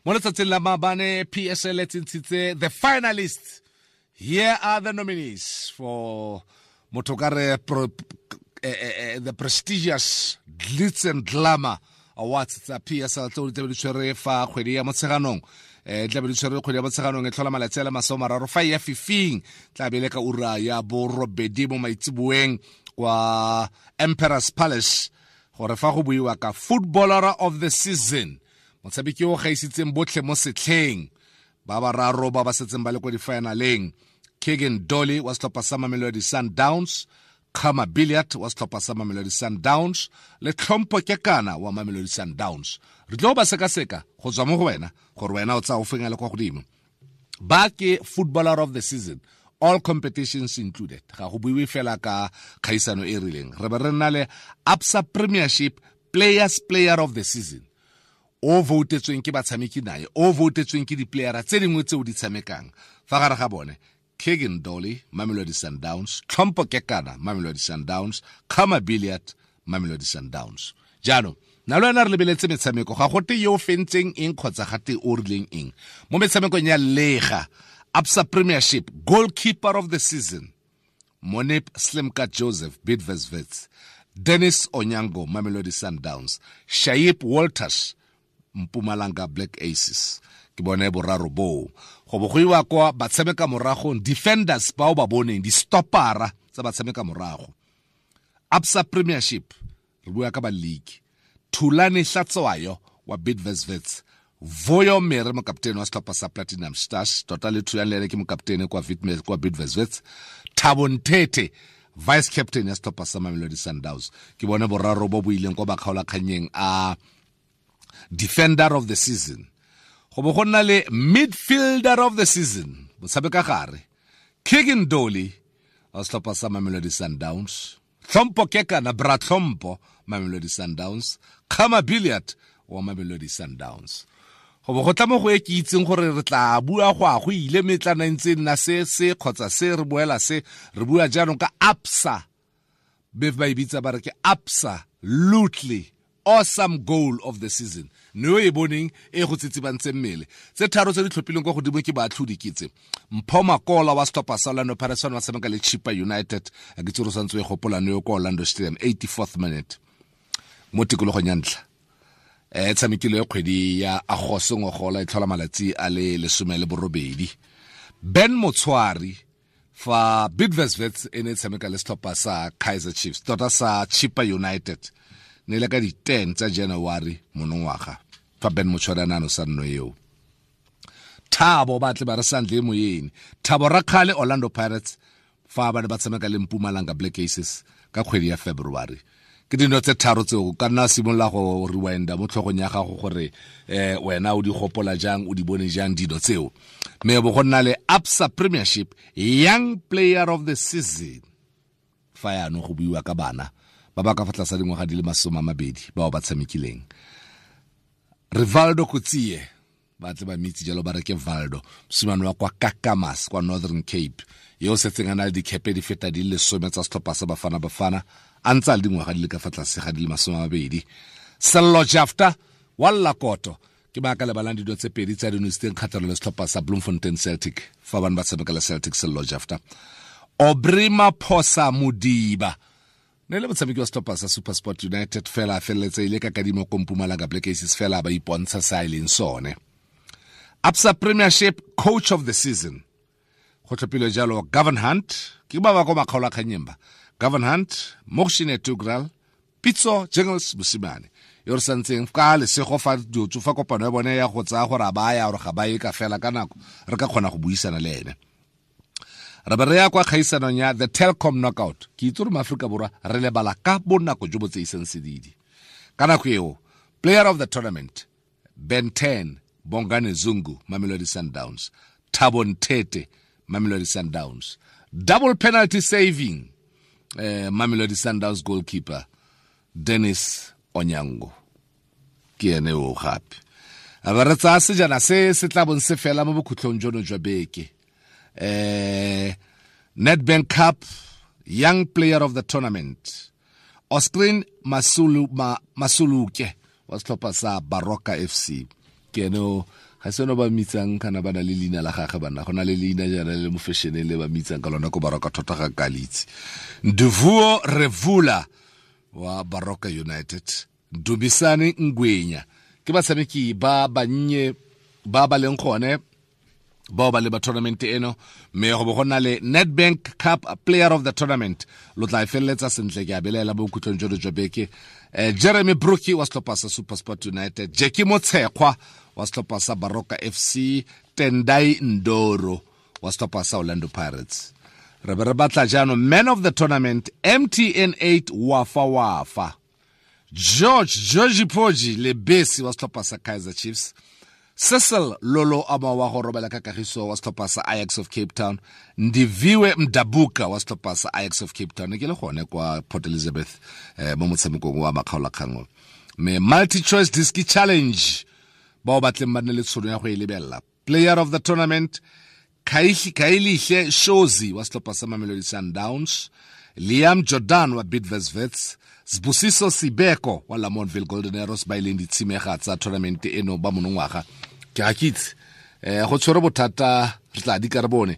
Mo letsatsing la maabane PSL e tsentshitse the finalists. Here are the nominees for motho ka re the prestigious Glitz and Glamour Awards tsa PSL tseo di tlabe di tshwere fa kgwedi ya Motsheganong. Tlabe di tshwere kgwedi ya Motsheganong e tlhola malatsi a le 30 fa ya fifing, tlabe le ka ura ya 8 mo maitseboeng kwa Emperor's Palace, gore fa go buiwa ka Footballer of the Season, motshameki o gaisitseng botlhe mo setlheng, ba bararo ba ba setseng ba le kwa di-finaleng: Kegan Dolly wa setlhopha sa Mamelodi Sundowns, Khama Billiat wa setlhopha sa Mamelodi Sundowns le Tlhompho Kekana wa Mamelodi Sundowns. Re tlo ba sekaseka go tswa mo go wena gore wena o tsaya o feng a le kwa godimo. Ba ke Footballer of the Season, all competitions included, ga go buiwe fela ka kgaisano e rileng. Re be re nna le Absa Premiership Players Player of the Season, o voutetsweng ke batshameki naye, o voutetsweng ke di-playera tse dingwe tseo di tshamekang. Fa gare ga bone, Kegan Dolly, Mamelodi Sundowns; Tlhompho Kekana, Mamelodi Sundowns; Khama Billiat, Mamelodi Sundowns. Jaanong na le wena re lebeletse metshameko, ga gote yo o fentseng eng kgotsa gate o rileng eng mo metshamekong ya lega. Absa Premiership Goalkeeper of the Season: Monip Slimka Joseph, Bidvest Wits; Dennis Onyango, Mamelodi Sundowns; Shaip Walters, Mpumalanga Black Aces. Ke bone boraro boo. Go bo go iwa kwa batshameka moragong, defenders bao ba boneng di-stoppera tsa batshameka morago. Absa Premiership, re bua ka ba league: Thulani Hlatshwayo wa Bidvest Wits, Voyo Mere, mokaptene wa setlhopha sa Platinum Stars, tota le Thulani le ene ke mokaptene kwa Bidvest Wits, Thabo Nthethe, vice captain ya setlhopha sa Mamelodi Sundowns. Ke bone boraro bo bo ileng kwa bakgaolakgannyeng a Defender of the Season. Go bo go nna le Midfielder of the Season, motshameka gare: Kegan Dolly wa setlhopha sa Mamelodi Sundowns, Tlhompho Kekana, Bra Tlhompho, Mamelodi Sundowns, Khama Billiat wa Mamelodi Sundowns. Go bo go tla mo go e ke itseng gore re tla bua go a go ile metlana ntse nna se se kgotsa se re boela se re bua jaanong ka Absa, be ba e bitsa ba re ke Absa Lutely Awesome Goal of the Season, ne o e boneng e go tsitsibantse mmele. Tse tharo tse di tlhophileng kwa godimo ke baatlhodi ke tse: Mpho Makola wa setlhopha sa Orlando Pirates wa tshameka le Chippa United, a ke tsere o santse o e gopola ne yo kwa Orlando Stadium, 84th minute mo tikologong ya ntlha e tshamekile kgwedi ya Agosto ngogola e tlhola malatsi a le 18. Ben Motshwari fa Bidvest Wits e ne e tshameka le setlhopha sa Kaizer Chiefs, tota sa Chippa United, ne le ka di-10 tsa January monongwaga fa Ben Motshwari a ne a nosa nno eo. Thabo ba tle ba re santle moyeng, Thabo Rakgale, Orlando Pirates, fa ba ne ba tshameka le Mpumalanga Black Aces ka kgwedi ya February. Ke dino tse tharo tseo ka nna simolola go rewinda mo tlhogong ya gago gore wena o di gopola jang, o di bone jang dino tseo. Mme bo go nna le Absa Premiership Young Player of the Season, fa yaanong go buiwa ka bana ba ba ka fa tlase dingwaga di le 20 bao ba tshamekileng: Rivaldo Coetzee, ba tle ba mitse jalo ba re ke Valdo, mosimane wa kwa Kakamas kwa Northern Cape, yo o setseng a na le dikhepe di feta di le 10 tsa setlhopha sa Bafana Bafana a ntse a le dingwaga di le ka fa tlase ga di le 20. Sello Jafta wa Llakoto, ke ba ka lebalang dilo tse pedi tsa dinositseng kgatlhanong le setlhopha sa Bloemfontein Celtic fa bane ba tshameka le Celtic. Sello Jafta. Aubrey Maphosa Modiba ne le motshameki wa setlhopha sa SuperSport United, fela a feleletse ile ka kadimo ko Mpumalanga Black Aces, fela ba ipontsha sa e leng sone. Absa Premiership Coach of the Season, go tlhophilwe jalo Gavin Hunt, ke ba ba ko makgaolakgannyeng ba, Gavin Hunt, Muhsin Ertugral, Pitso Jingles Mosimane yo re santseng ka lesego fa diotso fa kopano ya bone ya go tsaya gore a ba ya gore ga ba ye ka fela ka nako re ka kgona go buisana le ene. Re be re ya kwa kgaisanong ya the Telkom Knockout. Ke itse gore Maaforika Borwa re lebala ka bonako jo bo tseisang sedidi ka nako eo. Player of the Tournament: Ben 10 Bongane Zungu, Mamelodi Sundowns; Thabo Nthethe, Mamelodi Sundowns. Double penalty saving, Mamelodi Sundowns goalkeeper Dennis Onyango, ke ene o. Gape a ba re tsaya sejana se se tla bong se fela mo bokhutlong jono jwa beke, Nedbank Cup Young Player of the Tournament, Oscrin Masulu, Masuluke wa setlhopha sa Baroka FC, ke ene o. Ga se no ba mitsang kana ba na le leina la gagwe banna, go na le leina jaana le mo fashioneng le ba mitsang ka lona ko Baroka thota ga kalitse. Nduvuo Revula wa Baroka United, Dubisane Ngwenya, ke batshameki ba bannye ba ba leng gone bao ba leba tournament eno. Mme go bo go na le Nedbank Cup Player of the Tournament, lo tla e feleletsa sentle ke a belaela bo khutlong jono jwa beke. Jeremy Brookie wa setlhopha sa SuperSport United, Jackie Motshekgwa wa setlhopha sa Baroka FC, Tendai Ndoro wa setlhopha sa Orlando Pirates. Re be re batla jaanong man of the tournament, MTN 8 Wafa Wafa, George Georgi Poji Lebesi wa setlhopha sa Kaizer Chiefs, Cecil Lolo ama wa go robela ka kagiso wa setlhopha sa Ajax of Cape Town, Ndiviwe Mdabuka wa setlhopha sa Ajax of Cape Town, ke le gone kwa Port Elizabeth mo motshamekong wa makgaolakgang. Mme multi choice disc challenge, bao batleng ba nne le tshono ya go e lebelela, player of the tournament Kailihle Shozi wa setlhopha sa Mamelodi Sundowns, Liam Jordan wa Bidvest Wits, Sbusiso Sibeko wa Lamontville Golden Arrows, ba ileng ditshimega tsa tournament eno ba monongwaga. Ke ga ke itse go tshwere bothata, re tla di ka re bone.